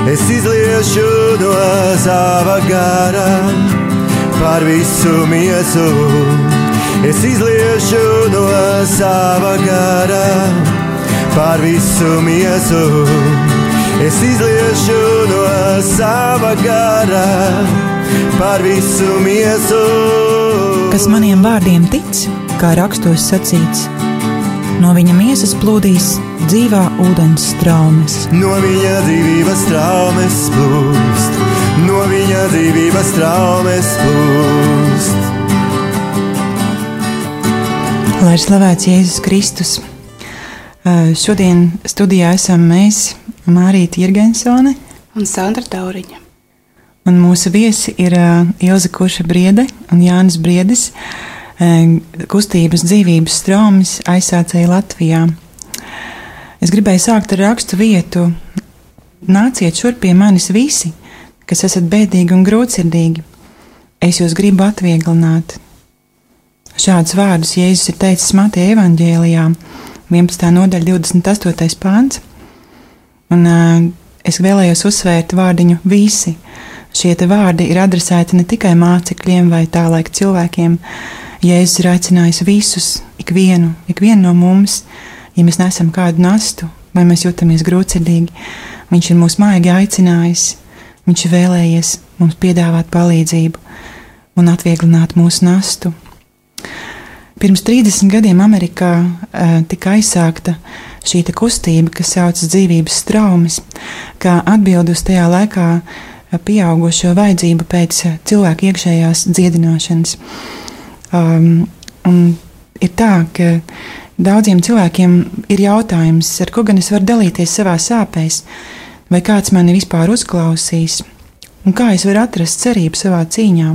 Es izliešu no sava gara par visu miesu. Es izliešu no sava gara par visu miesu. Es izliešu no sava gara par visu miesu. Kas maniem vārdiem tic, kā rakstos sacīts, no viņa miesas plūdīs dzīvā ūdens straumes. No viņa dzīvības straumes plūst, no viņa dzīvības straumes plūst. Lai ir slavēts Jēzus Kristus. Šodien studijā esam mēs, Mārīte Jirgensone un Sandra Tauriņa. Un mūsu viesi ir Ilze Kurša Briede un Jānis Briedis, kustības dzīvības straumes aizsācēji Latvijā. Es gribēju sākt ar rakstu vietu: nāciet šurp pie manis visi, kas esat bēdīgi un grūtsirdīgi, es jūs gribu atvieglināt. Šādus vārdus Jēzus ir teicis Mateja evaņģēlijā, 11. nodaļa, 28. pāns. Un es vēlējos uzsvērt vārdiņu visi. Šie te vārdi ir adresēti ne tikai mācekļiem vai tā laika cilvēkiem. Jēzus ir aicinājis visus, ikvienu no mums, ja mēs nesam kādu nastu vai mēs jūtamies grūtsirdīgi. Viņš ir mūs maigi aicinājis, viņš ir vēlējies mums piedāvāt palīdzību un atvieglināt mūsu nastu. Pirms 30 gadiem Amerikā tika aizsākta šī kustība, kas saucas dzīvības straumes, kā atbildi uz tajā laikā pieaugušo vajadzību pēc cilvēku iekšējās dziedināšanas. Un ir tā, ka daudziem cilvēkiem ir jautājums, ar ko gan es varu dalīties savā sāpēs, vai kāds mani vispār uzklausīs, un kā es varu atrast cerību savā cīņā.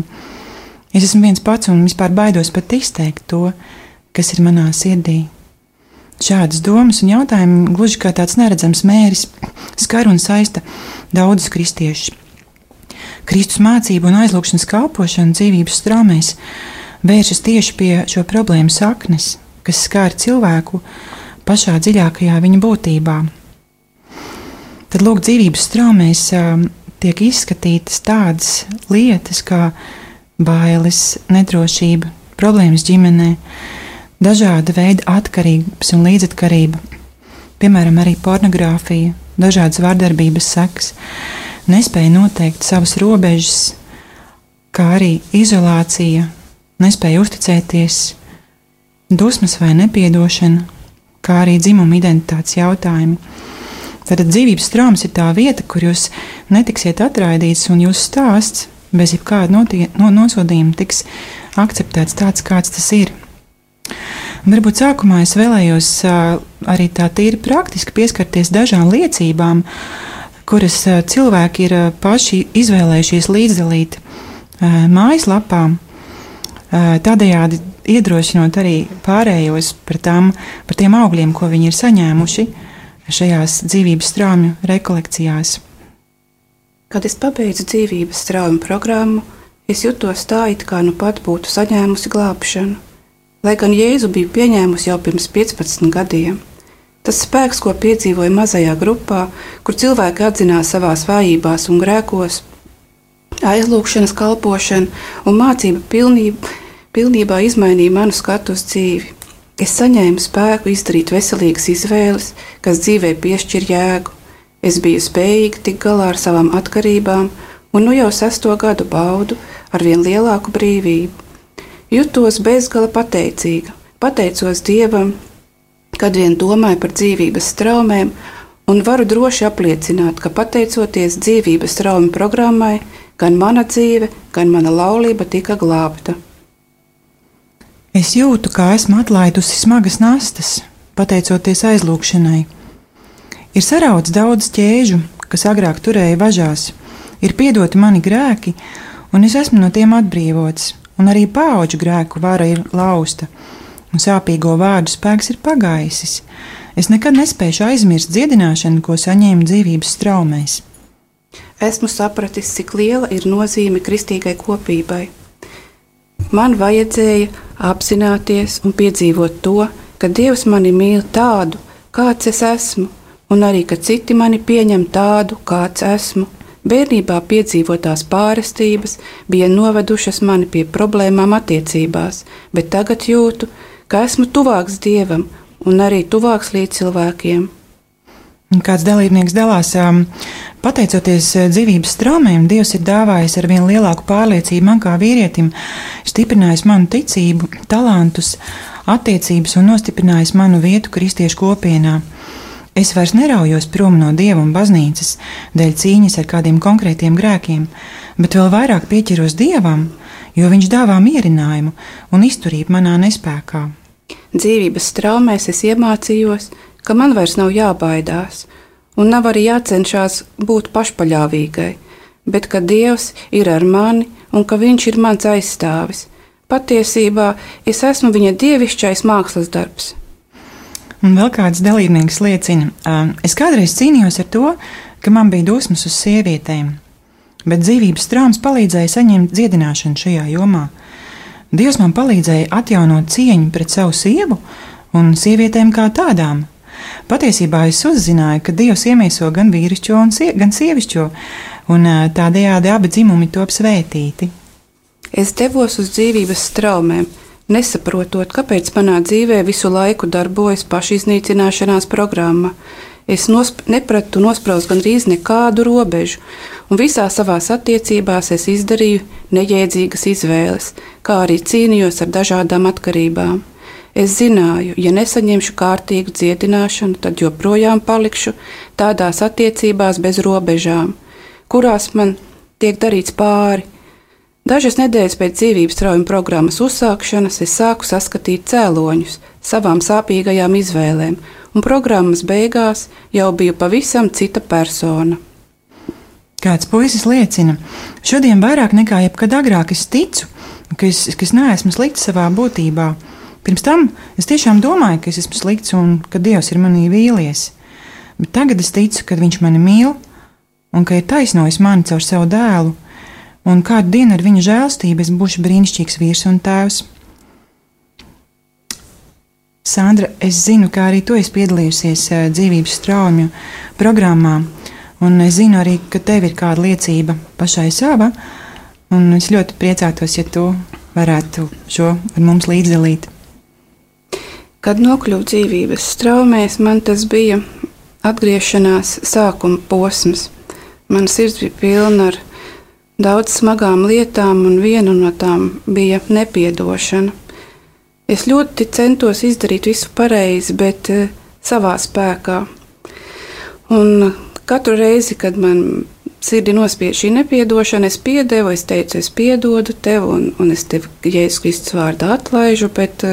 Es esmu viens pats un vispār baidos pat izteikt to, kas ir manā sirdī. Šādas domas un jautājumi, gluži kā tāds neredzams mēris, skar un saista daudzus kristiešus. Kristus mācību un aizlūgšanas kalpošana dzīvības straumēs vēršas tieši pie šo problēmu saknes, kas skār cilvēku pašā dziļākajā viņa būtībā. Tad lūk, dzīvības straumēs tiek izskatītas tādas lietas kā bailes, nedrošība, problēmas ģimenē, dažāda veida atkarības un līdzatkarība, piemēram, arī pornogrāfija, dažādas vardarbības sekas, nespēja noteikt savas robežas, kā arī izolācija, nespēja uzticēties, dusmas vai nepiedošana, kā arī dzimuma identitātes jautājumi. Tātad dzīvības traumas ir tā vieta, kur jūs netiksiet atraidīts un jūsu stāsts bez jebkāda nosodījuma tiks akceptēts tāds, kāds tas ir. Varbūt sākumā es vēlējos arī tā tīri praktiski pieskarties dažām liecībām, kuras cilvēki ir paši izvēlējušies līdzdalīt mājaslapā, tādējādi iedrošinot arī pārējos par tiem augļiem, ko viņi ir saņēmuši šajās dzīvības straumju rekolekcijās. Kad es pabeidzu dzīvības straumu programmu, es jutos tā, it kā nu pat būtu saņēmusi glābšanu. Lai gan Jēzu biju pieņēmusi jau pirms 15 gadiem. Tas spēks, ko piedzīvoju mazajā grupā, kur cilvēki atzinās savās vājībās un grēkos, aizlūgšanas kalpošana un mācība pilnībā izmainīja manu skatu uz dzīvi. Es saņēmu spēku izdarīt veselīgas izvēles, kas dzīvē piešķir jēgu. Es biju spējīga tikt galā ar savām atkarībām, un nu jau 6. gadu baudu ar vien lielāku brīvību. Jutos bezgala pateicīga, pateicos Dievam, kad vien domāju par dzīvības straumēm, un varu droši apliecināt, ka pateicoties dzīvības traumu programmai, gan mana dzīve, gan mana laulība tika glābta. Es jūtu, kā esmu atlaidusi smagas nastas, pateicoties aizlūgšanai. Ir sarauts daudz ķēžu, kas agrāk turēja važās, ir piedoti mani grēki, un es esmu no tiem atbrīvots, un arī paauģu grēku vara ir lausta, un sāpīgo vārdu spēks ir pagaisis. Es nekad nespēšu aizmirst dziedināšanu, ko saņēmu dzīvības straumēs. Esmu sapratis, cik liela ir nozīme kristīgai kopībai. Man vajadzēja apzināties un piedzīvot to, ka Dievs mani mīl tādu, kāds es esmu, un arī, ka citi mani pieņem tādu, kāds esmu. Bērnībā piedzīvotās pārestības bija novedušas mani pie problēmām attiecībās, bet tagad jūtu, ka esmu tuvāks Dievam un arī tuvāks līdz cilvēkiem. Kāds dalībnieks dalās, pateicoties dzīvības traumēm, Dievs ir dāvājis ar vien lielāku pārliecību man kā vīrietim, stiprinājis manu ticību, talantus, attiecības un nostiprinājis manu vietu kristiešu kopienā. Es vairs neraujos prom no Dieva un baznīcas dēļ cīņas ar kādiem konkrētiem grēkiem, bet vēl vairāk pieķeros Dievam, jo Viņš dāvā mierinājumu un izturību manā nespēkā. Dzīvības traumēs es iemācījos, ka man vairs nav jābaidās, un nav arī jācenšas būt pašpaļāvīgai, bet ka Dievs ir ar mani un ka Viņš ir mans aizstāvis. Patiesībā es esmu Viņa dievišķais mākslas darbs. Un vēl kāds dalībnieks liecina, es kādreiz cīnījos ar to, ka man bija dusmas uz sievietēm, bet dzīvības traumas palīdzēja saņemt dziedināšanu šajā jomā. Dievs man palīdzēja atjaunot cieņu pret savu sievu un sievietēm kā tādām. Patiesībā es uzzināju, ka Dievs iemieso gan vīrišķo, gan sievišķo, un tādējādi abi dzimumi top svētīti. Es devos uz dzīvības traumēm, nesaprotot, kāpēc manā dzīvē visu laiku darbojas pašiznīcināšanās programma. Es nepratu nospraust gandrīz nekādu robežu, un visā savās attiecībās es izdarīju nejēdzīgas izvēles, kā arī cīnījos ar dažādām atkarībām. Es zināju, ja nesaņemšu kārtīgu dziedināšanu, tad joprojām palikšu tādās attiecībās bez robežām, kurās man tiek darīts pāri. Dažas nedēļas pēc dzīvības traumu programmas uzsākšanas es sāku saskatīt cēloņus savām sāpīgajām izvēlēm, un programmas beigās jau biju pavisam cita persona. Kāds puisis liecina, šodien vairāk nekā jebkad agrāk es ticu, ka es neesmu slikts savā būtībā. Pirms tam es tiešām domāju, ka es esmu slikts un ka Dievs ir manī vīlies, bet tagad es ticu, ka Viņš mani mīl un ka ir taisnojis mani caur savu dēlu, un kādu dienu ar Viņa žēlstību es būšu brīnišķīgs vīrs un tēvs. Sandra, es zinu, ka arī tu esi piedalījusies dzīvības traumu programmā, un es zinu arī, ka tev ir kāda liecība pašai sava, un es ļoti priecātos, ja tu varētu šo ar mums līdzdalīt. Kad nokļuvu dzīvības traumēs, man tas bija atgriešanās sākuma posms. Man sirds bija pilna ar daudz smagām lietām, un viena no tām bija nepiedošana. Es ļoti centos izdarīt visu pareizi, bet savā spēkā. Un katru reizi, kad man sirdi nospied šī nepiedošana, es piedevu, es teicu, es piedodu tev, un es tevi Jēzus Kristus vārdā atlaižu, bet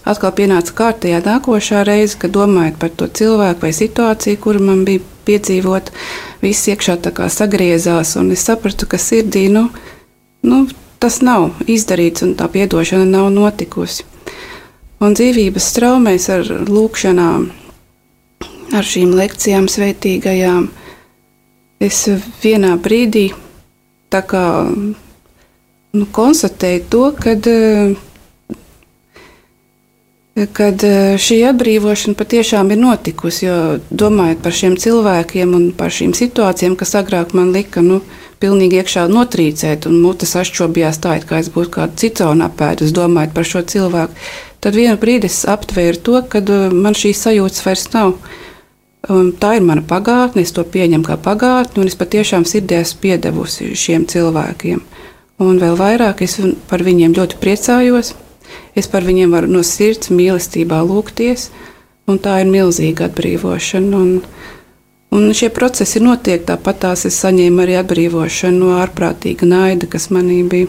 atkal pienāca kārtējā nākošā reize, kad domājot par to cilvēku vai situāciju, kuru man bija piedzīvot, viss iekšā tā kā sagriezās, un es sapratu, ka sirdī, tas nav izdarīts, un tā piedošana nav notikusi. Un dzīvības traumēs ar lūkšanām, ar šīm lekcijām svētīgajām, es vienā brīdī tā kā konstatēju to, kad šī atbrīvošana patiešām ir notikusi, jo domājot par šiem cilvēkiem un par šīm situācijām, kas agrāk man lika pilnīgi iekšā notrīcēt un mutes ašķobījās tā, it kā es būtu kādu citonu apēdus, domājot par šo cilvēku, tad vienu brīdi es aptvēru to, ka man šīs sajūtas vairs nav. Tā ir mana pagātne, es to pieņemu kā pagātni, un es patiešām sirdī esmu piedevusi šiem cilvēkiem. Un vēl vairāk es par viņiem ļoti priecājos. Es par viņiem varu no sirds mīlestībā lūgties, un tā ir milzīga atbrīvošana. Un šie procesi notiek, tāpat tās es saņēmu arī atbrīvošanu no ārprātīga naida, kas manī bija,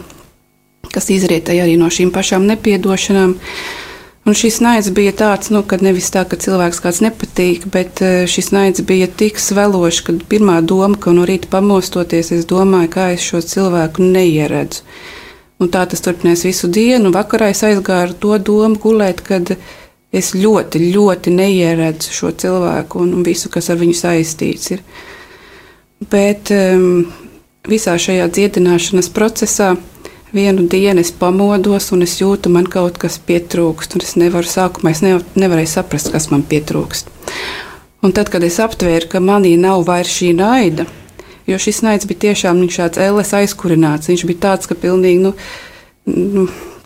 kas izrietēja arī no šīm pašām nepiedošanām. Un šis naids bija tāds, kad nevis tā, ka cilvēks kāds nepatīk, bet šis naids bija tik svelošs, ka pirmā doma, ka no rīta pamostoties, es domāju, kā es šo cilvēku neieredzu. Un tā tas turpinās visu dienu. Vakarā es aizgāju ar to domu gulēt, kad es ļoti, ļoti neieredzu šo cilvēku un visu, kas ar viņu saistīts ir. Bet visā šajā dziedināšanas procesā vienu dienu es pamodos un es jūtu, man kaut kas pietrūkst. Un es nevaru sākumā, es nevarēju saprast, kas man pietrūkst. Un tad, kad es aptvēru, ka manī nav vairs šī naida, jo šis naids bija tiešām tāds ēles aizkurināts, viņš bija tāds, ka pilnīgi,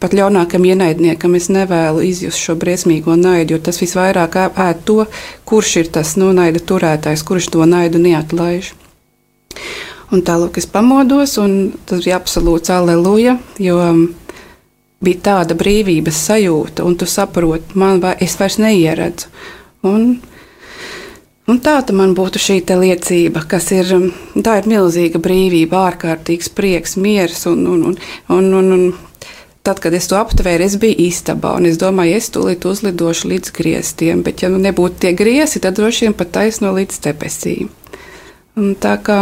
pat ļaunākam ienaidniekam es nevēlu izjust šo briesmīgo naidu, jo tas visvairāk ēd to, kurš ir tas naida turētājs, kurš to naidu neatlaiž. Un tālāk es pamodos, un tas bija absolūts alleluja, jo bija tāda brīvības sajūta, un tu saproti, es vairs neieredzu. Un tā man būtu šī liecība, kas tā ir milzīga brīvība, ārkārtīgs prieks, miers. Un tad, kad es to aptvēru, es biju istabā, un es domāju, es tūlīt uzlidošu līdz griestiem, bet ja nebūtu tie griesti, tad droši vien pat taisno līdz debesīm. Un tā kā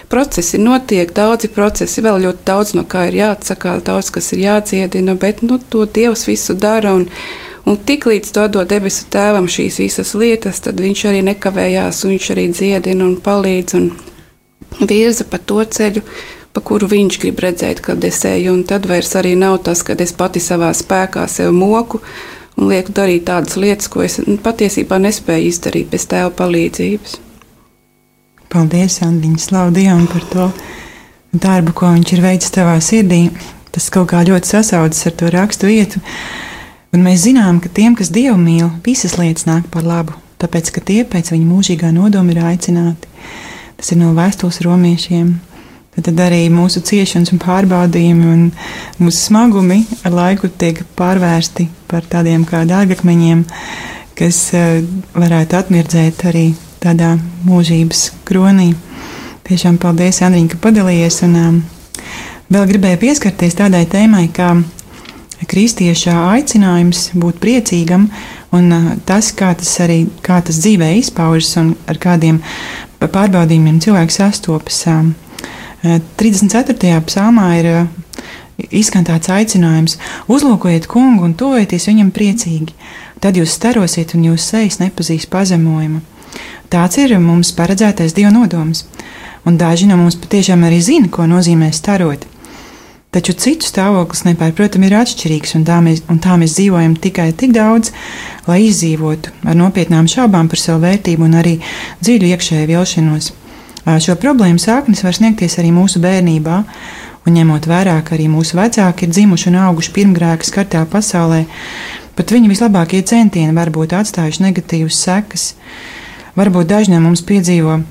procesi notiek, daudzi procesi, vēl ļoti daudz no kā ir jāatsakā, daudz kas ir jādziedina, bet to Dievs visu dara, un tiklīdz to dod debesu tēvam šīs visas lietas, tad viņš arī nekavējās, un viņš arī dziedina un palīdz un virza pa to ceļu, pa kuru viņš grib redzēt, kad es eju, un tad vairs arī nav tas, kad es pati savā spēkā sev moku un lieku darīt tādas lietas, ko es patiesībā nespēju izdarīt bez tēva palīdzības. Paldies, Andiņa, slavu Dievam par to darbu, ko viņš ir veicis tavā sirdī. Tas kaut kā ļoti sasaucas ar to rakstu vietu. Un mēs zinām, ka tiem, kas Dievu mīl, visas lietas nāk par labu, tāpēc, ka tie pēc viņa mūžīgā nodoma ir aicināti. Tas ir no vēstules romiešiem. Tad arī mūsu ciešanas un pārbaudījumi un mūsu smagumi ar laiku tiek pārvērsti par tādiem kā dārgakmeņiem, kas varētu atmirdzēt arī tādā mūžības kronī. Tiešām paldies, Andriņ, ka padalījies. Un vēl gribēju pieskarties tādai tēmai, kā kristieša aicinājums būt priecīgam un tas, kā tas dzīvē izpaužas un ar kādiem pārbaudījumiem cilvēks sastopas. 34. psalmā ir izskan tāds aicinājums: uzlūkojiet kungu un tuvojieties viņam priecīgi, tad jūs starosiet un jūsu sejas nepazīs pazemojumu. Tāds ir mums paredzētais Dieva nodoms, un daži no mums patiešām arī zina, ko nozīmē starot. Taču citu stāvoklis nepārprotami ir atšķirīgs, un tā mēs dzīvojam tikai tik daudz, lai izdzīvotu ar nopietnām šaubām par savu vērtību un arī dziļu iekšēju vilšanos. Šo problēmu sāknis var sniegties arī mūsu bērnībā, un ņemot vērā, ka arī mūsu vecāki ir dzimuši un auguši pirmgrēka skartā pasaulē, pat viņu vislabākie centieni var būt atstājuši negatīvas sekas. Varbūt daži no mums piedzīvo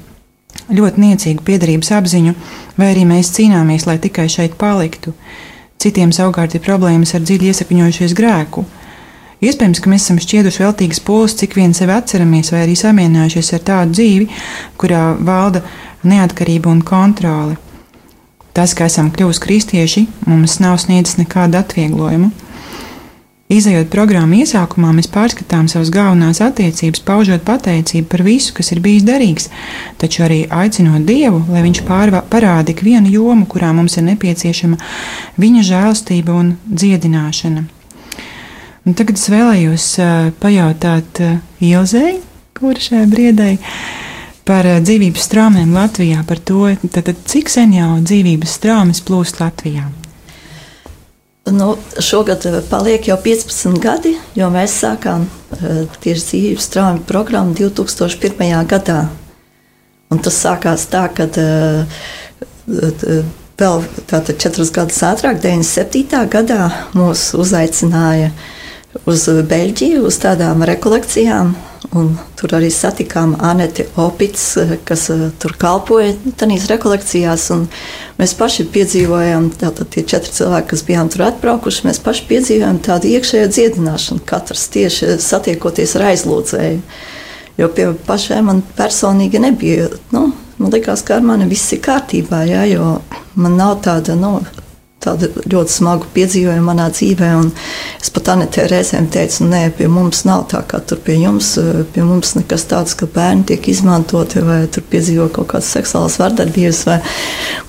ļoti niecīgu piederības apziņu, vai arī mēs cīnāmies, lai tikai šeit paliktu. Citiem savukārt ir problēmas ar dziļi iesakņojušies grēku. Iespējams, ka mēs esam šķieduši veltīgas pūles, cik vien sevi atceramies, vai arī samierinājušies ar tādu dzīvi, kurā valda neatkarība un kontrole. Tas, ka esam kļuvuši kristieši, mums nav sniedzis nekādu atvieglojumu. Izejot programmu iesākumā, mēs pārskatām savas galvenās attiecības, paužot pateicību par visu, kas ir bijis derīgs, taču arī aicinot Dievu, lai viņš parāda ikvienu jomu, kurā mums ir nepieciešama viņa žēlastība un dziedināšana. Un tagad es vēlējos pajautāt Ilzei, kura šajā briedē, par dzīvības straumēm Latvijā, par to, cik sen jau dzīvības straumes plūst Latvijā. Šogad paliek jau 15 gadi, jo mēs sākām tieši dzīvības straume programmu 2001. gadā. Un tas sākās tā, kad vēl 4 gadus ātrāk, 97. gadā, mūs uzaicināja uz Beļģiju, uz tādām rekolekcijām. Un tur arī satikām Aneti Opits, kas tur kalpoja tādās rekolekcijās. Mēs paši piedzīvojām, tātad tie 4 cilvēki, kas bijām tur atbraukuši, mēs paši piedzīvojām tādu iekšējo dziedināšanu, katrs tieši satiekoties ar aizlūdzēju. Jo pie pašiem man personīgi nebija, man likās, ka ar mani viss ir kārtībā, jā, jo man nav tāda ļoti smagu piedzīvojumu manā dzīvē, un es pat Anetē reizēm teicu, nē, pie mums nav tā, kā tur pie mums nekas tāds, ka bērni tiek izmantoti, vai tur piedzīvo kaut kādas seksuālas vardarbības, vai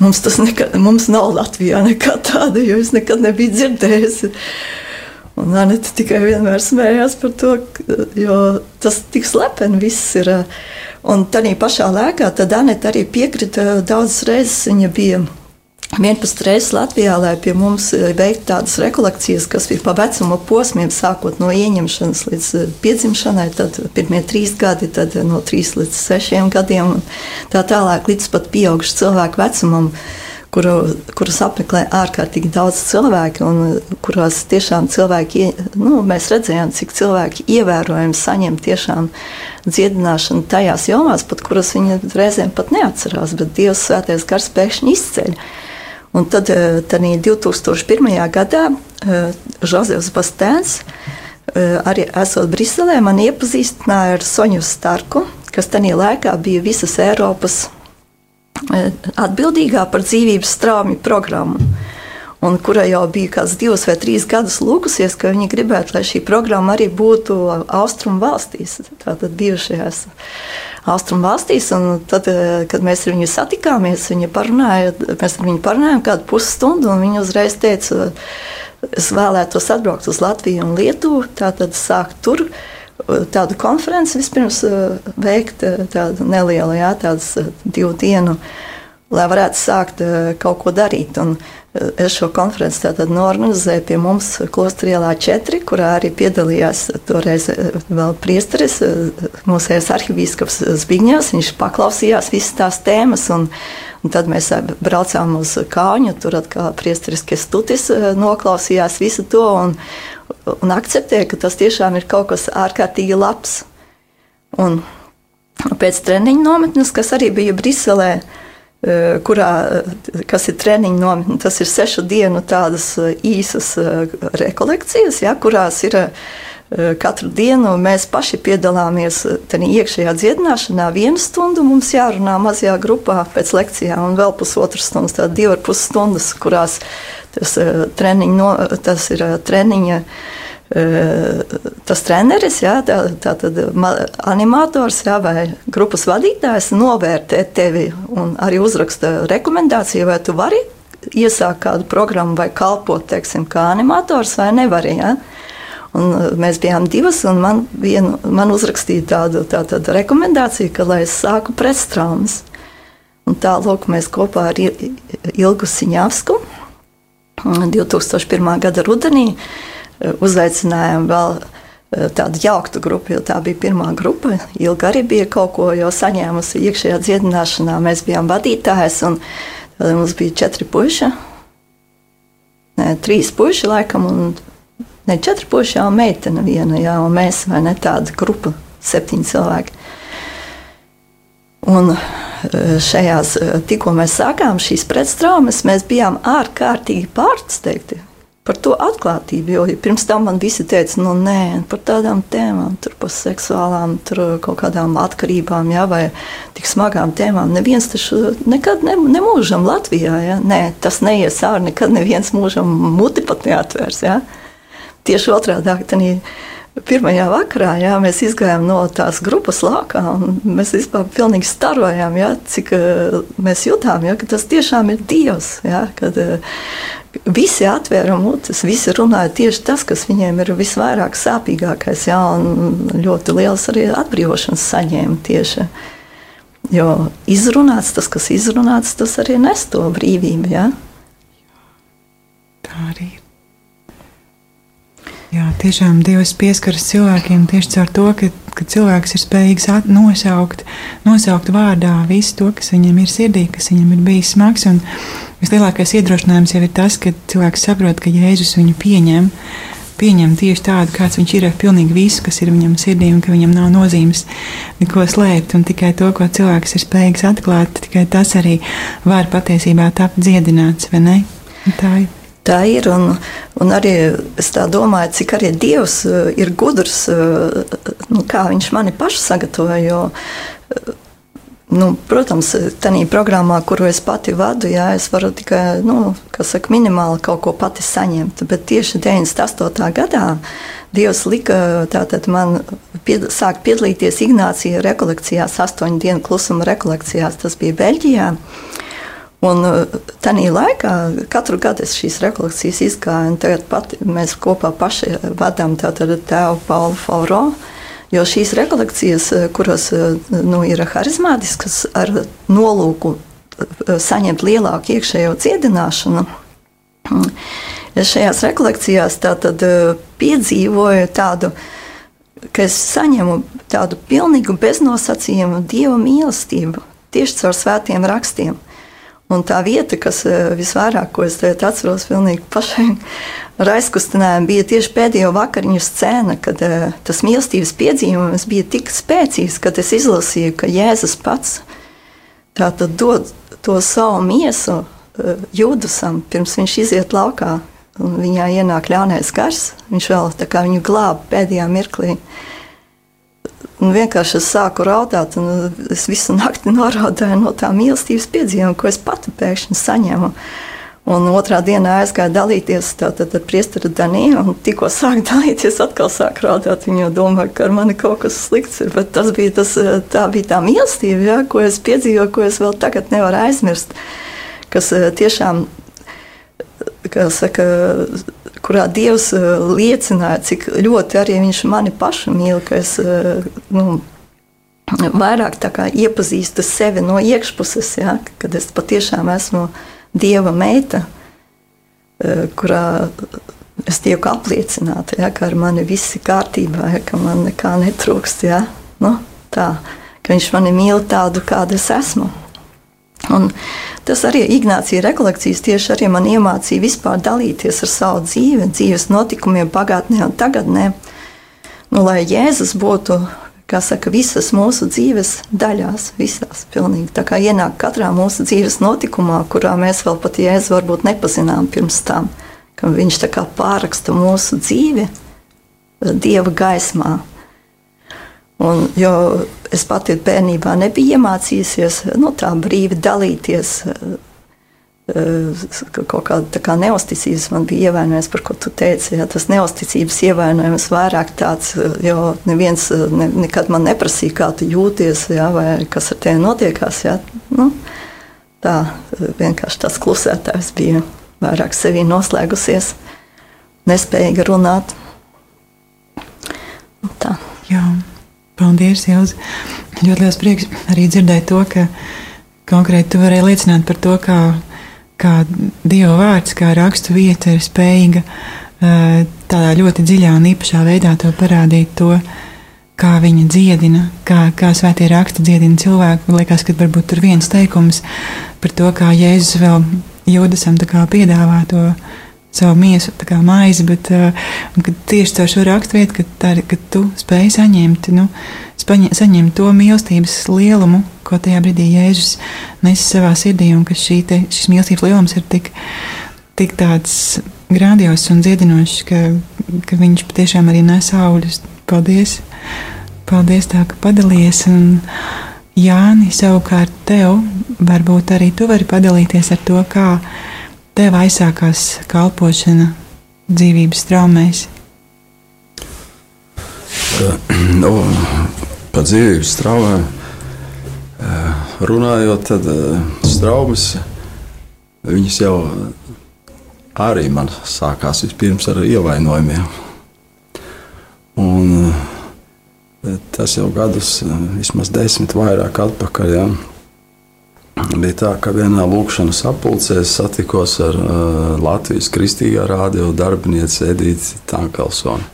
mums nav Latvijā nekā tāda, jo es nekad nebiju dzirdējusi. Un Anete tikai vienmēr smējās par to, jo tas tik slepeni viss ir. Un tādā pašā laikā tad Anete arī piekrita daudzas reizes, viņa bija 11 reizes Latvijā, lai pie mums veiktu tādas rekolekcijas, kas ir pa vecuma posmiem, sākot no ieņemšanas līdz piedzimšanai, tad pirmie 3 gadi, tad no 3 līdz 6 gadiem, un tā tālāk līdz pat pieaugušu cilvēku vecumam, kurus apmeklē ārkārtīgi daudz cilvēku, un kurās tiešām cilvēki, mēs redzējām, cik cilvēki ievērojami saņem tiešām dziedināšanu tajās jomās, pat kuras viņi reizēm pat neatcerās, bet Dievs svētais gars pēkšņi izceļ. Un tad 2001. gadā Žozefs Bastēns, arī esot Briselē, man iepazīstināja ar Soņu Starku, kas tajā laikā bija visas Eiropas atbildīgā par dzīvības straumju programmu, un kura jau bija kāds 2 vai 3 gadus lūgusies, ka viņi gribētu, lai šī programma arī būtu Austrumu valstīs, tātad bijušajās Austrumu valstīs. Un tad, kad mēs ar viņu satikāmies, mēs ar viņu parunājām kādu pusstundu, un viņa uzreiz teica, es vēlētos atbraukt uz Latviju un Lietuvu, tātad sākt tur tādu konferenci vispirms veikt, tādu nelielu, tādas 2 dienu, lai varētu sākt kaut ko darīt. Un es šo konferenci tātad norganizēju pie mums Klostrielā 4, kurā arī piedalījās toreiz vēl priesteris, mūsējais arhibīskaps Zbigņevs. Viņš paklausījās visas tās tēmas, un tad mēs braucām uz Kāņu, tur atkal priesteris Kestutis noklausījās visu to un akceptēja, ka tas tiešām ir kaut kas ārkārtīgi labs. Un pēc treniņu nometnes, kas arī bija Briselē, kas ir treniņu nometne, tas ir 6 dienu tādas īsas rekolekcijas, kurās ir katru dienu mēs paši piedalāmies iekšējā dziedināšanā. 1 stundu mums jārunā mazajā grupā pēc lekcijām, un vēl 1,5 stundas, tātad 2,5 stundas, kurās tas ir treniņa. Tas treneris, tātad animators vai grupas vadītājs novērtē tevi un arī uzraksta rekomendāciju, vai tu vari iesākt kādu programmu vai kalpot, teiksim, kā animators vai nevari. Un mēs bijām 2, un man uzrakstīja tādu rekomendāciju, ka lai es sāku pretstraumas. Un tā, lūk, mēs kopā ar Ilgu Siņavsku 2001. gada rudenī uzaicinājām vēl tādu jauktu grupu, jo tā bija pirmā grupa. Ilga arī bija kaut ko jau saņēmusi iekšējā dziedināšanā. Mēs bijām vadītājs, un mums bija 4 puiši, 3 puiši laikam, un 4 puiši jau meitene viena, un mēs, vai ne, tāda grupa, 7 cilvēki. Un šajās, tikko mēs sākām šīs pretstraumas, mēs bijām ārkārtīgi pārsteigti par to atklātību, jo pirms tam man visi teica, nē, par tādām tēmām, tur par seksuālām, tur kaut kādām atkarībām, vai tik smagām tēmām. Neviens taču nekad nemūžam Latvijā, nē, tas neies ārā, nekad neviens mūžam muti pat neatvērs, Tieši otrādāk, pirmajā vakarā mēs izgājām no tās grupas laukā, un mēs vispār pilnīgi starojām, cik mēs jutām, ka tas tiešām ir Dievs, kad visi atvēra mutes, visi runāja tieši tas, kas viņiem ir visvairāk sāpīgākais, un ļoti liels arī atbrīvošanas saņēma tieši. Jo izrunāts, tas, kas izrunāts, tas arī nes to brīvību, Tā arī ir. Jā, tiešām Dievs pieskaras cilvēkiem tieši caur to, ka cilvēks ir spējīgs nosaukt vārdā visu to, kas viņam ir sirdī, kas viņam ir bijis smags. Un vislielākais iedrošinājums jau ir tas, ka cilvēks saprot, ka Jēzus viņu pieņem tieši tādu, kāds viņš ir, ar pilnīgi visu, kas ir viņam sirdī, un ka viņam nav nozīmes neko slēpt, un tikai to, ko cilvēks ir spējīgs atklāt, tikai tas arī var patiesībā tapt dziedināts, vai ne? Un tā ir. Tā ir, un arī es tā domāju, cik arī Dievs ir gudrs, kā viņš mani pašu sagatavoja, jo, protams, tādā programmā, kuru es pati vadu, es varu tikai, minimāli kaut ko pati saņemt, bet tieši 98. gadā Dievs lika tātad man sākt piedalīties Ignācija rekolekcijās, 8 dienu klusuma rekolekcijās, tas bija Beļģijā. Un tajā laikā katru gadu es šīs rekolekcijas izgāju, un tagad mēs kopā paši vadām tātad tēvu Paulu Fauro, jo šīs rekolekcijas, kuras ir harizmātiskas ar nolūku saņemt lielāku iekšējo dziedināšanu. Es šajās rekolekcijās tātad piedzīvoju tādu, ka es saņemu tādu pilnīgu beznosacījumu Dieva mīlestību tieši caur svētiem rakstiem. Un tā vieta, kas visvairāk, ko es atceros pilnīgi pašai ar aizkustinājumu, bija tieši pēdējo vakariņu scēna, kad tas mīlestības piedzīvojums bija tik spēcīgs, kad es izlasīju, ka Jēzus pats tātad dod to savu miesu Jūdasam, pirms viņš iziet laukā, un viņā ienāk ļaunais gars. Viņš vēl tā kā viņu glāba pēdējā mirklī. Un vienkārši es sāku raudāt, un es visu nakti noraudāju no tā mīlestības piedzīvojuma, ko es pati pēkšņi saņēmu. Un otrā dienā aizgāju dalīties tātad ar priesteri Daniju, un tikko sāku dalīties, atkal sāku raudāt. Viņa jau domāja, ka ar mani kaut kas slikts ir, bet tā bija tā mīlestība, ja, ko es piedzīvoju, ko es vēl tagad nevaru aizmirst, kas tiešām, kā saka, kurā Dievs liecināja, cik ļoti arī viņš mani pašu mīl, ka es vairāk tā kā iepazīstu sevi no iekšpuses, ja, kad es patiešām esmu Dieva meita, kurā es tieku apliecināta, ja, ka ar mani viss ir kārtībā, ja, ka man nekā netrūkst, ja, tā, ka viņš mani mīl tādu, kāda es esmu. Un tas arī Ignācija rekolekcijas tieši arī man iemācīja vispār dalīties ar savu dzīvi, dzīves notikumiem pagātnē un tagadnē. Lai Jēzus būtu, kā saka, visas mūsu dzīves daļās, visās pilnīgi. Tā kā ienāk katrā mūsu dzīves notikumā, kurā mēs vēl pat Jēzu varbūt nepazinām pirms tam, ka viņš tā kā pārraksta mūsu dzīvi Dieva gaismā. Un, jo es pati bērnībā nebiju iemācījusies tā brīvi dalīties, kaut kāda tā kā neusticības man bija ievainojums, par ko tu teici. Ja, tas neusticības ievainojums vairāk tāds, jo neviens nekad man neprasīja, kā tu jūties, ja, vai kas ar tevi notiekās. Ja. Tā vienkārši tas klusētājs bija vairāk sevī noslēgusies, nespējīga runāt. Tā. Jā. Paldies, Ilze. Ļoti liels prieks arī dzirdēt to, ka konkrēti tu varēji liecināt par to, kā Dieva vārds, kā rakstu vieta ir spējīga tādā ļoti dziļā un īpašā veidā to parādīt to, kā viņa dziedina, kā svētie raksti dziedina cilvēku. Man liekas, ka varbūt tur viens teikums par to, kā Jēzus vēl Jūdasam tā kā piedāvā to savu miesu, tā kā maizi, bet tieši caur šo raksturvietu, ka tu spēj saņemt to mīlestības lielumu, ko tajā brīdī Jēzus nes savā sirdī, un ka šis mīlestības lielums ir tik tāds grandios un dziedinošs, ka viņš patiešām arī nes augļus. Paldies! Paldies tā, ka padalījies, un Jāni, savukārt tev, varbūt arī tu vari padalīties ar to, kā tev aizsākās kalpošana dzīvības traumēs? Par dzīvības traumēm runājot, tad traumas, viņas jau arī man sākās vispirms ar ievainojumiem. Un tas jau gadus, vismaz 10 vairāk atpakaļ, ja. Bija tā, ka vienā lūkšanas sapulcē es satikos ar Latvijas Kristīgā radio darbinieci Edīti Tankelsoni.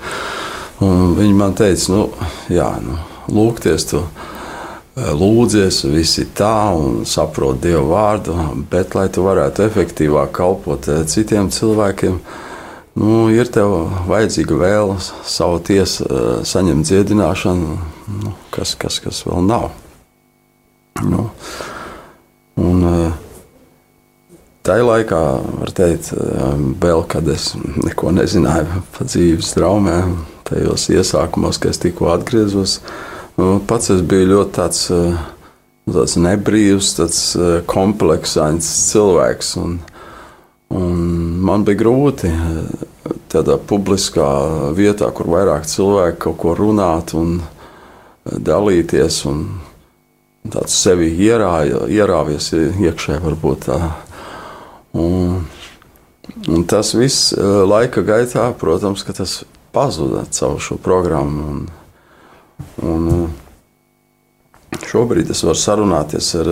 Viņa man teica, lūgties tu lūdzies, visi tā un saprot Dieva vārdu, bet, lai tu varētu efektīvāk kalpot citiem cilvēkiem, ir tev vajadzīga vēle savu tiesu saņemt dziedināšanu, kas vēl nav. Un tajā laikā, var teikt, vēl, kad es neko nezināju par dzīves traumēm, tajos iesākumos, kad es tikko atgriezos, pats es biju ļoti tāds nebrīvs, tāds kompleksains cilvēks, un man bija grūti tādā publiskā vietā, kur vairāk cilvēki kaut ko runāt un dalīties, un tāds sevi ierāvies iekšē varbūt tā. Un tas viss laika gaitā, protams, ka tas pazuda caur šo programmu. Un šobrīd es varu sarunāties ar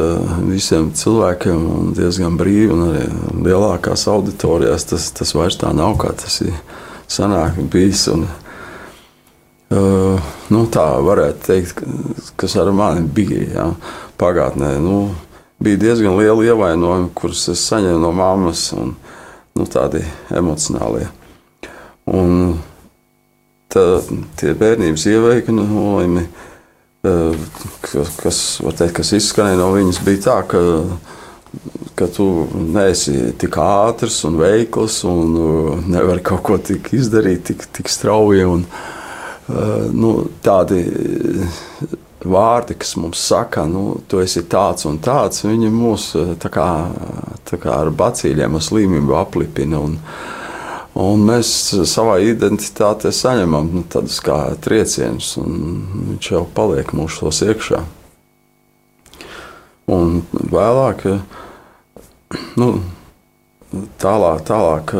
visiem cilvēkiem diezgan brīvi, un arī lielākās auditorijās tas vairs tā nav, kā tas ir sanāk bijis. Un, tā varētu teikt, kas ar mani bija, jā, pagātnē. Bija diezgan liela ievainojuma, kurus es saņēmu no mammas, un tādi emocionālie. Un tie bērnības ievainojumi, kas izskanēja no viņas, bija tā, ka tu neesi tik ātrs un veikls un nevari kaut ko tik izdarīt, tik strauji. Un, tādi vārdi, kas mums saka, tu esi tāds un tāds, viņi mūs tā kā ar bacīļiem, ar slimību aplipina. Un mēs savā identitātē saņemam tādus kā triecienus, un viņš jau paliek mūsos iekšā. Un vēlāk, tālāk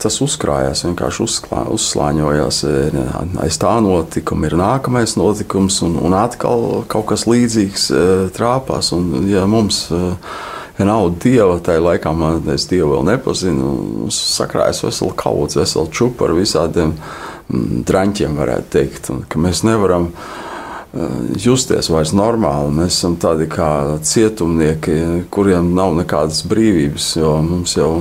tas uzkrājās, vienkārši uzslāņojās. Aiz tā notikuma ir nākamais notikums, un atkal kaut kas līdzīgs trāpās. Un, ja mums nav Dieva, tajā laikā es Dievu vēl nepazinu, sakrājas veselu kaudzi, veselu čupu ar visādiem draņķiem, varētu teikt, un ka mēs nevaram justies vairs normāli. Mēs esam tādi kā cietumnieki, kuriem nav nekādas brīvības, jo mums jau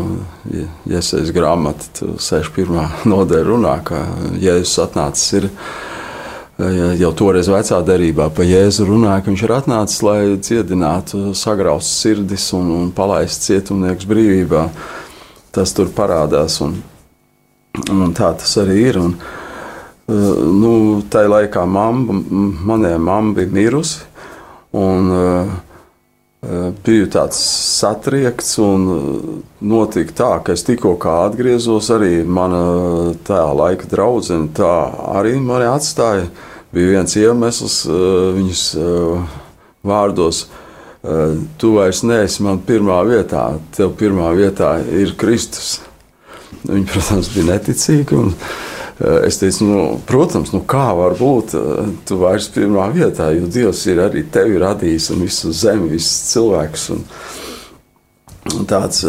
Jesajas grāmata 61. nodaļa runā, ka Jēzus atnācis ir. Jau toreiz vecā derībā pa Jēzu runāja, ka viņš ir atnācis, lai dziedinātu sagraustas sirdis un palaistu cietumniekus brīvībā. Tas tur parādās, un tā tas arī ir. Un, tajā laikā manai mamma bija mirusi, un biju tāds satriekts, un notika tā, ka es tikko kā atgriezos, arī mana tā laika draudzene tā arī mani atstāja. Bija viens iemesls viņas vārdos: tu vairs neesi man pirmā vietā, tev pirmā vietā ir Kristus. Viņa, protams, bija neticīga, un es teicu, protams, kā var būt tu vairs pirmā vietā, jo Dievs ir arī tevi radījis un visu zemi, visus cilvēkus. Un tāds,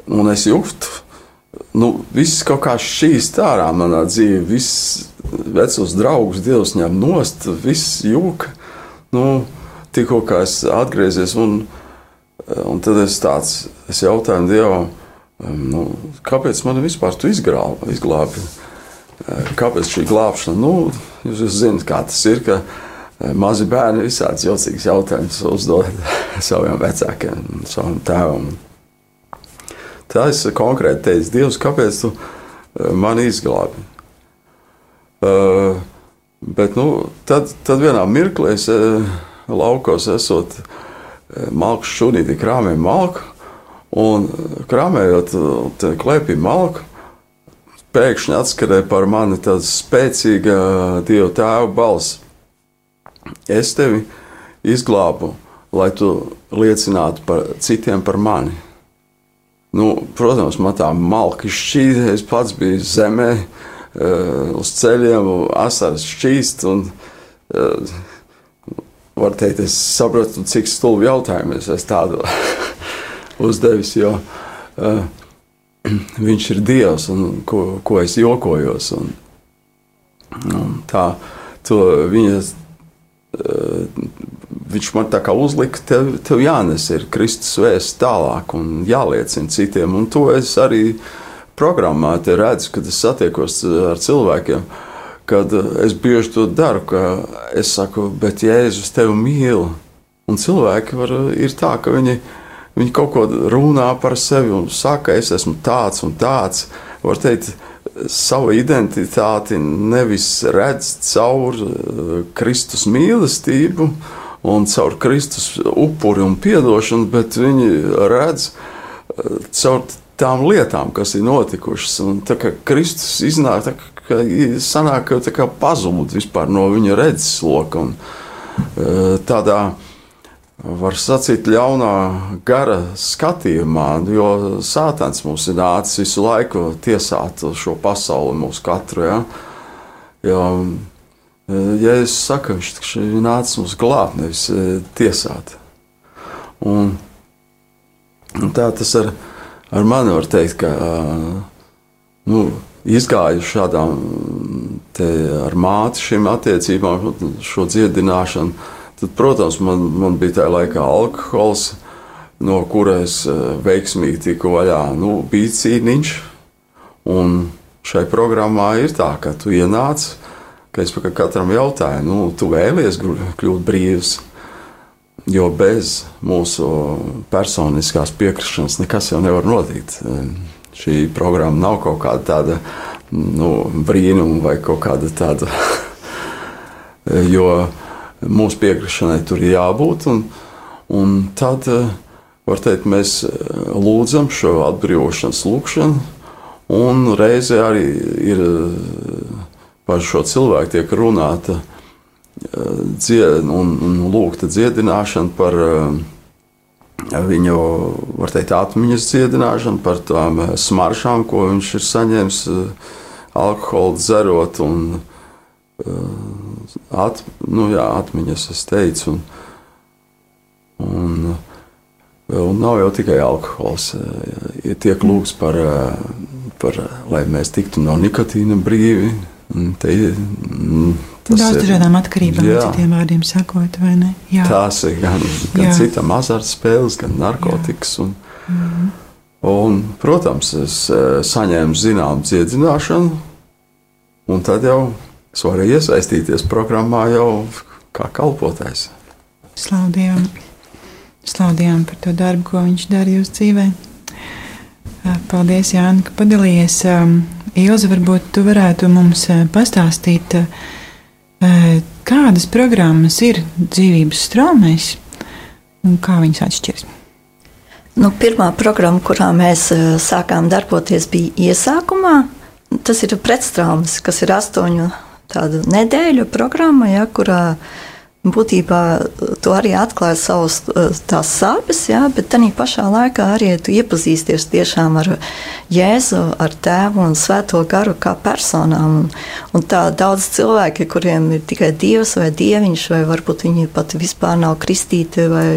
un es jūtu, viss kaut kā šķīst ārā manā dzīvē, viss vecos draugus Dievs ņem nost, viss jūka. Tikko kā es atgriezies, un tad es jautāju Dievam, kāpēc man vispār tu izglābi? Kāpēc šī glābšana? Jūs zināt, kā tas ir, ka mazi bērni visāds jocīgs jautājums uzdod saviem vecākiem, savam tēvam. Tā es konkrēti teicu: Dievs, kāpēc tu mani izglābi? Bet tad vienā mirklī es laukos esot malku šunīti, krāmēju malku, un krāmējot klēpī malku, pēkšņi atskarēja par mani tāda spēcīga Dieva tēva balss: es tevi izglābu, lai tu liecinātu citiem par mani. Protams, man tā malka šķīta, es pats biju zemē, uz ceļiem, asaras šķīst, un var teikt, es sapratu, cik stulbi jautājumu es tādu uzdevis, jo viņš ir Dievs, un ko es jokojos. Un tā, viņš man tā kā uzlika, tev jānes ir Kristus vēsts tālāk un jāliecina citiem, un to es arī programmā te redzu, kad es satiekos ar cilvēkiem, kad es bieži to daru, ka es saku, bet Jēzus tevi mīl, un cilvēki ir tā, ka viņi kaut ko runā par sevi un saka, es esmu tāds un tāds, var teikt, savu identitāti nevis redz caur Kristus mīlestību un caur Kristus upuri un piedošanu, bet viņi redz caur tām lietām, kas ir notikušas. Un tā kā Kristus iznāk, sanāk, ka tā kā pazūd vispār no viņa redzesloka. Un tādā, var sacīt, ļaunā gara skatījumā, jo Sātans mums ir nācis visu laiku tiesāt šo pasauli, mūsu katru. Ja? Jo Jēzus saka, viņš ir nācis mums glābt, nevis tiesāt. Un tā tas ar mani var teikt, ka izgāju šādām ar māti šīm attiecībām, šo dziedināšanu. Tad, protams, man bija tajā laikā alkohols, no kura es veiksmīgi tiku vaļā. Bija cīniņš, un šai programmā ir tā, ka tu ienāc, ka es katram jautāju, tu vēlies kļūt brīvs, jo bez mūsu personiskās piekrišanas nekas jau nevar notikt. Šī programma nav kaut kāda tāda brīnuma vai kaut kāda tāda, jo mūsu piekrišanai tur ir jābūt, un tad, var teikt, mēs lūdzam šo atbrīvošanas lūkšanu, un reizē arī ir par šo cilvēku tiek runāta un lūgta dziedināšana par viņu, var teikt, atmiņas dziedināšanu, par tām smaršām, ko viņš ir saņēmis alkoholu dzerot, un atmiņas, es teicu, un nav jau tikai alkohols, tiek lūgts par lai mēs tiktu no nikotīna brīvi. Daudz dažādām atkarībām, citiem vārdiem sakot, vai ne? Jā. Tās ir gan citam azartspēles, gan narkotikas. Un, protams, es saņēmu zinām dziedināšanu, un tad jau es varēju iesaistīties programmā jau kā kalpotājs. Slaudījām par to darbu, ko viņš dara jūsu dzīvē. Paldies, Jāni, ka padalījies. Ilze, varbūt tu varētu mums pastāstīt, kādas programmas ir dzīvības straumēs un kā viņas atšķiras? Pirmā programma, kurā mēs sākām darboties, bija iesākumā. Tas ir pretstraumas, kas ir 8 tādu nedēļu programma, kurā būtībā tu arī atklāji savus tās sāpes, bet tādā pašā laikā arī tu iepazīsties tiešām ar Jēzu, ar Tēvu un Svēto garu kā personām. Un tā daudz cilvēki, kuriem ir tikai Dievs vai Dieviņš, vai varbūt viņi pat vispār nav kristīti vai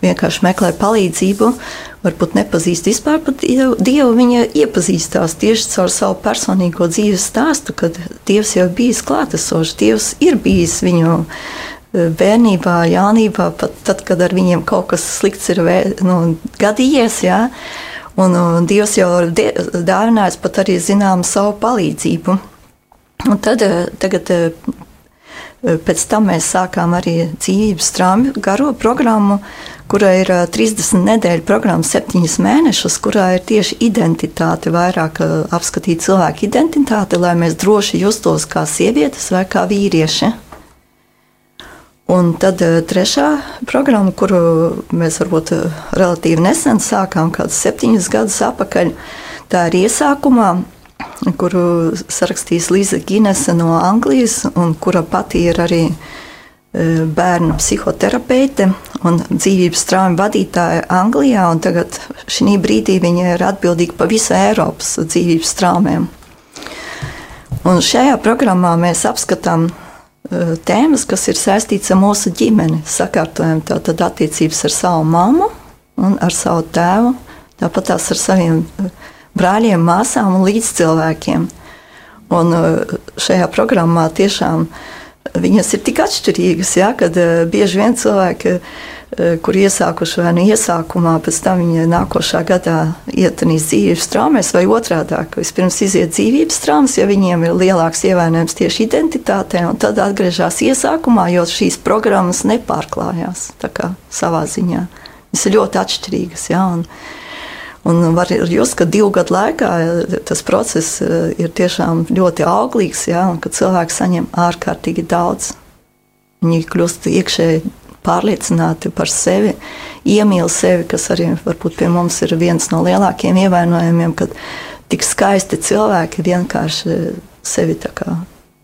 vienkārši meklē palīdzību, varbūt nepazīst vispār pat Dievu, viņa iepazīstās tieši caur savu personīgo dzīves stāstu, kad Dievs jau bijis klātesošs, Dievs ir bijis viņu bērnībā, jaunībā, pat tad, kad ar viņiem kaut kas slikts ir gadījies, un Dievs jau dāvinājis pat arī zinām savu palīdzību. Un tad, tagad, pēc tam mēs sākām arī dzīvības straumu garo programmu, kura ir 30 nedēļu programma, 7 mēnešus, kurā ir tieši identitāte, vairāk apskatīt cilvēku identitāti, lai mēs droši justos kā sievietes vai kā vīrieši. Un tad trešā programma, kuru mēs varbūt relatīvi nesen sākām, kādus 7 gadus atpakaļ, tā ir iesākumā, kuru sarakstīs Liza Ginese no Anglijas, un kura pati ir arī bērnu psihoterapeite un dzīvības traumu vadītāja Anglijā, un tagad šī brīdī viņa ir atbildīga par visu Eiropas dzīvības traumēm. Un šajā programmā mēs apskatām tēmas, kas ir saistīts ar mūsu ģimeni, sakārtojam tātad attiecības ar savu mammu un ar savu tēvu, tāpat tās ar saviem brāļiem, māsām un līdzcilvēkiem. Un šajā programmā tiešām viņas ir tik atšķirīgas, kad bieži vien cilvēki, kur iesākuši vai iesākumā, pēc tam viņa nākošā gadā ietanīs dzīvības traumēs vai otrādāk. Vispirms iziet dzīvības traumas, ja viņiem ir lielāks ievainojums tieši identitātē, un tad atgriežas iesākumā, jo šīs programmas nepārklājās tā kā savā ziņā. Viņas ir ļoti atšķirīgas, un var just, ka 2 gadu laikā tas process ir tiešām ļoti auglīgs, un ka cilvēki saņem ārkārtīgi daudz. Viņi kļūst iekšēji pārliecināti par sevi, iemīl sevi, kas arī varbūt pie mums ir viens no lielākiem ievainojumiem, kad tik skaisti cilvēki vienkārši sevi tā kā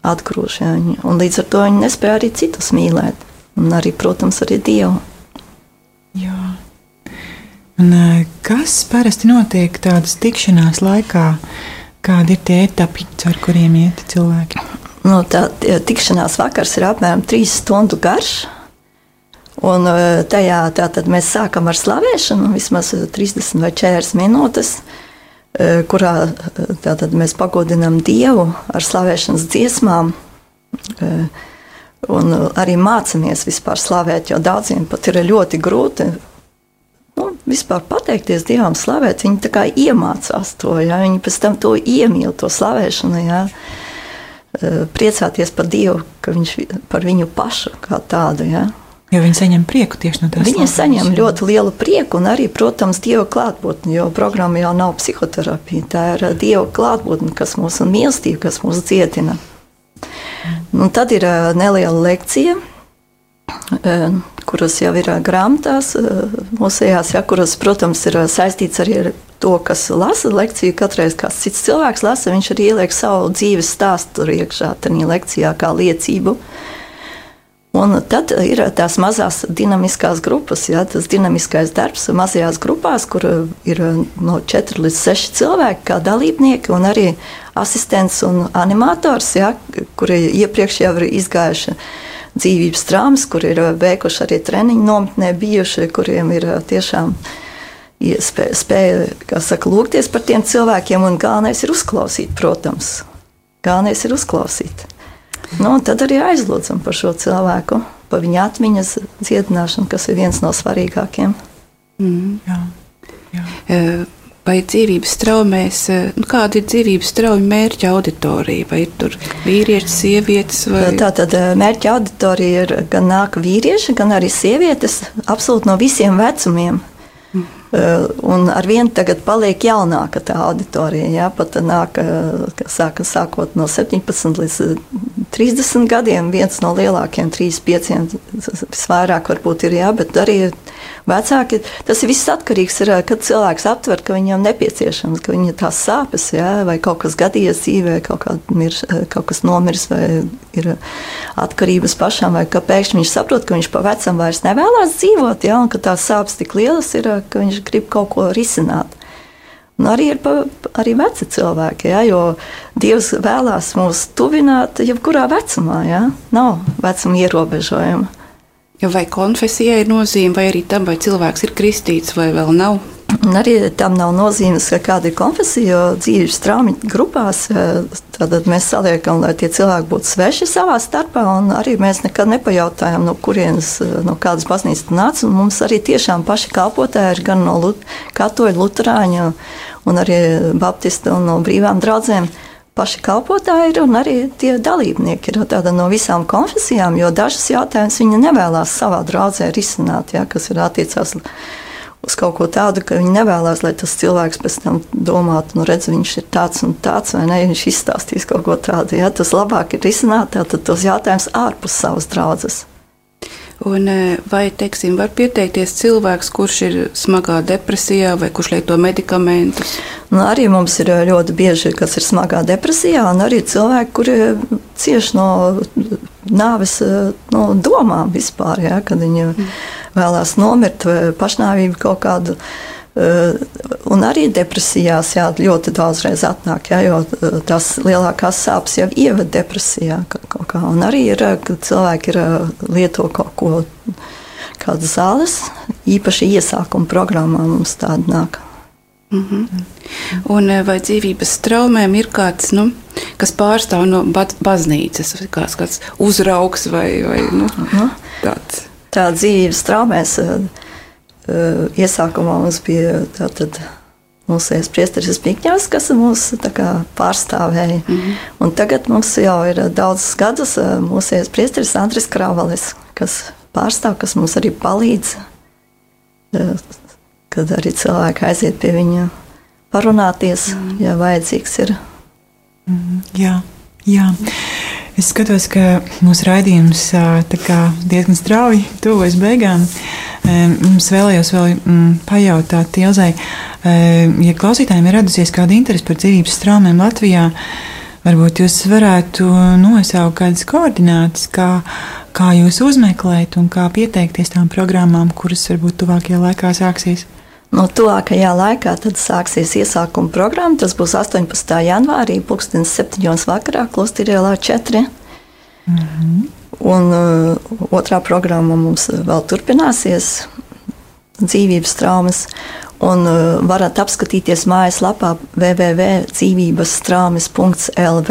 atgrūž. Un līdz ar to viņi nespēja arī citus mīlēt. Un arī, protams, arī Dievu. Jā. Un kas parasti notiek tādas tikšanās laikā? Kādi ir tie etapi, ar kuriem iet cilvēki? Nu, tā tikšanās vakars ir apmēram 3 stundu garš. Un tajā tātad mēs sākam ar slavēšanu, vismaz 30 vai 40 minūtes, kurā tātad mēs pagodinām Dievu ar slavēšanas dziesmām. Un arī mācāmies vispār slavēt, jo daudziem pat ir ļoti grūti vispār pateikties Dievam, slavēt. Viņi tā kā iemācās to, ja? Viņi pēc tam to iemīl, to slavēšanu, ja? Priecāties par Dievu, ka viņš par viņu pašu kā tādu. Ja? Jo viņi saņem prieku tieši no tās. Viņi saņem ļoti lielu prieku un arī, protams, Dieva klātbūtni, jo programma jau nav psihoterapija. Tā ir Dieva klātbūtne, kas mūs un mīlestība, kas mūs dziedina. Un tad ir neliela lekcija, kuras jau ir grāmatās mūsējās, ja, kuras, protams, ir saistīts arī ar to, kas lasa lekciju. Katreiz kāds cits cilvēks lasa, viņš arī ieliek savu dzīves stāstu tur iekšā, tajā lekcijā kā liecību. Un tad ir tās mazās dinamiskās grupas, ja, tas dinamiskais darbs mazajās grupās, kur ir no 4 līdz 6 cilvēki kā dalībnieki un arī asistents un animators, ja, kuri iepriekš jau ir izgājuši dzīvības traumas, kuri ir veikuši arī treniņu nometnē bijuši, kuriem ir tiešām spēja, kā saka, lūgties par tiem cilvēkiem, un galvenais ir uzklausīt, protams. Galvenais ir uzklausīt. Nu, tad arī aizlūdzam par šo cilvēku, par viņa atmiņas dziedināšanu, kas ir viens no svarīgākiem. Jā. Vai dzīvības traumēs, kāda ir dzīvības traumu mērķa auditorija? Vai ir tur vīrieši, sievietes? Vai? Tātad mērķa auditorija ir gan nāk vīrieši, gan arī sievietes, absolūti no visiem vecumiem. Un ar vienu tagad paliek jaunāka tā auditorija. Ja? Pat nāk, sākot no 17 līdz 30 gadiem, viens no lielākiem, 3-5, visvairāk varbūt ir, jā, bet arī vecāki. Tas ir viss atkarīgs, kad cilvēks aptver, ka viņam nepieciešams, ka viņa tās sāpes, jā, vai kaut kas gadījies dzīvē, kaut kas nomirs, vai ir atkarības pašam, vai ka pēkšņi viņš saprot, ka viņš pa vecam vairs nevēlās dzīvot, jā, un ka tās sāpes tik lielas ir, ka viņš grib kaut ko risināt. Un arī ir arī veci cilvēki, ja, jo Dievs vēlās mūs tuvināt jebkurā vecumā. Ja. Nav vecuma ierobežojuma. Vai konfesijai ir nozīme, vai arī tam, vai cilvēks ir kristīts, vai vēl nav? Un arī tam nav nozīmes, kāda ir konfesija, jo dzīves traumu grupās tad mēs saliekam, lai tie cilvēki būtu sveši savā starpā, un arī mēs nekad nepajautājam, no kurienes, no kādas baznīcas nāca, un mums arī tiešām paši kalpotāji ir gan no katoļu, luterāņu, un arī baptistu un no brīvām draudzēm. Paši kalpotāji ir un arī tie dalībnieki ir tāda no visām konfesijām, jo dažas jautājumas viņi nevēlās savā draudzē risināt, ja, kas ir attiecās uz kaut ko tādu, ka viņi nevēlas, lai tas cilvēks pēc tam domātu, nu redz, viņš ir tāds un tāds, vai ne, viņš izstāstīs kaut ko tādu. Ja? Tas labāk ir risināt tos jautājumus ārpus savas draudzes. Un vai, teiksim, var pieteikties cilvēks, kurš ir smagā depresijā vai kurš lieto medikamentus? Nu, arī mums ir ļoti bieži, kas ir smagā depresijā, un arī cilvēki, kuri cieši no nāves no domām vispār, ja, kad viņi vēlās nomirt vai pašnāvību kaut kādu. Un arī depresijās jā, ļoti daudzreiz atnāk, jā, jo tās lielākās sāpes jau ieved depresijā kaut kā. Un arī ir, kad cilvēki lieto kaut ko, kādas zāles, īpaši iesākuma programmā mums tāda nāk. Un vai dzīvības traumēm ir kāds, kas pārstāv no baznīcas, kāds uzraugs vai tāds? Tā dzīvības traumēs iesākumā mums bija tātad mūsējais priesteris Zbigņevs, kas mūs tā kā pārstāvēja. Un tagad mums jau ir daudzus gadus mūsējais priesteris Andris Kravalis, kas pārstāv, kas mums arī palīdz, kad arī cilvēki aiziet pie viņa parunāties, ja vajadzīgs ir. Jā. Es skatos, ka mūsu raidījums diezgan strauji tuvojas beigām. Mums vēlējos vēl pajautāt Ilzei, ja klausītājiem ir radusies kāda interese par dzīvības traumēm Latvijā, varbūt jūs varētu nosaukt kādas koordinātas, kā jūs uzmeklēt un kā pieteikties tām programmām, kuras varbūt tuvākajā laikā sāksies? No tuvākajā laikā tad sāksies iesākuma programma. Tas būs 18. janvārī, 7:00 vakarā, Klosterā ielā 4. Un otrā programma mums vēl turpināsies, dzīvības traumas, un varat apskatīties mājaslapā www.dzīvībestraumas.lv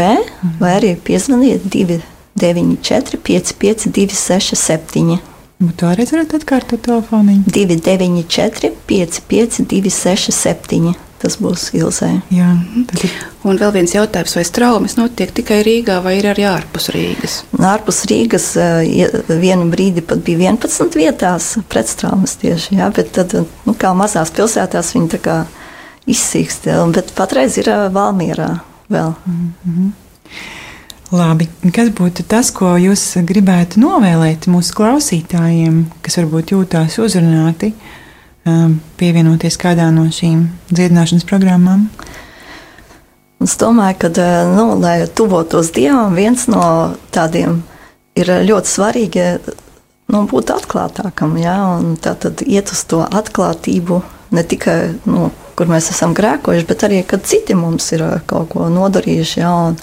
vai arī piezvaniet 294 55 267. Tu arī varat atkārtot telefoniņu? 294 55 267. Tas būs Ilzē. Jā, tad... Un vēl viens jautājums, vai traumas notiek tikai Rīgā vai ir arī ārpus Rīgas? Ārpus Rīgas vienu brīdi pat bija 11 vietās prettraumas tieši, jā, bet tad, kā mazās pilsētās viņi tā kā izsīkst, bet patreiz ir Valmierā vēl. Labi, kas būtu tas, ko jūs gribētu novēlēt mūsu klausītājiem, kas varbūt jūtās uzrunāti, pievienoties kādā no šīm dziedināšanas programmām? Es domāju, ka, lai tuvotos Dievam, viens no tādiem ir ļoti svarīgi būt atklātākam, ja? Un tātad iet uz to atklātību, ne tikai, kur mēs esam grēkojuši, bet arī, kad citi mums ir kaut ko nodarījuši, ja? Un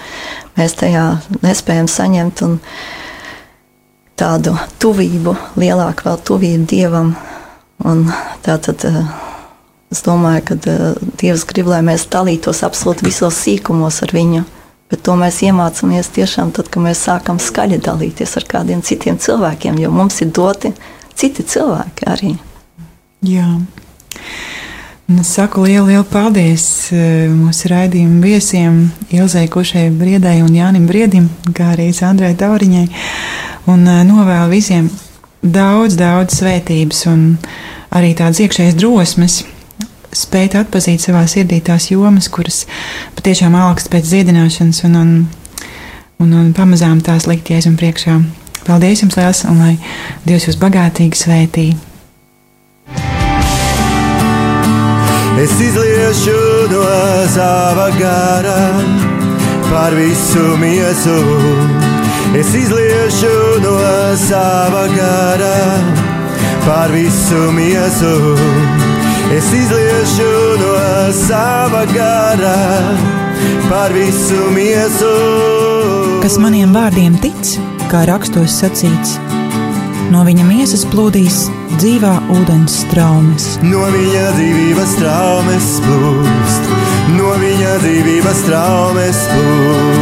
mēs tajā nespējam saņemt un tādu tuvību, lielāku vēl tuvību Dievam. Un tātad es domāju, ka Dievs grib, lai mēs dalītos absolūti visos sīkumos ar viņu, bet to mēs iemācāmies tiešām tad, kad mēs sākam skaļi dalīties ar kādiem citiem cilvēkiem, jo mums ir doti citi cilvēki arī. Jā. Es saku lielu paldies mūsu raidījumu viesiem Ilzei Kušai Briedai un Jānim Briedim, kā arī Sandrai Tauriņai, un novēlu visiem daudz svētības un arī tādas iekšējas drosmes spēt atpazīt savā sirdī tās jomas, kuras patiešām augst pēc dziedināšanas un pamazām tās likt Jēzum priekšā. Paldies jums liels un lai Dievs jūs bagātīgi svētī. Es izliešu no sava gara par visu miesu. Es izliešu no sava gara par visu miesu. Es izliešu no sava gara par visu miesu. Kas maniem vārdiem tic, kā rakstos sacīts, no viņa miesas plūdīs dzīvā ūdens straumes. No viņa dzīvības straumes plūst, no viņa dzīvības straumes plūst.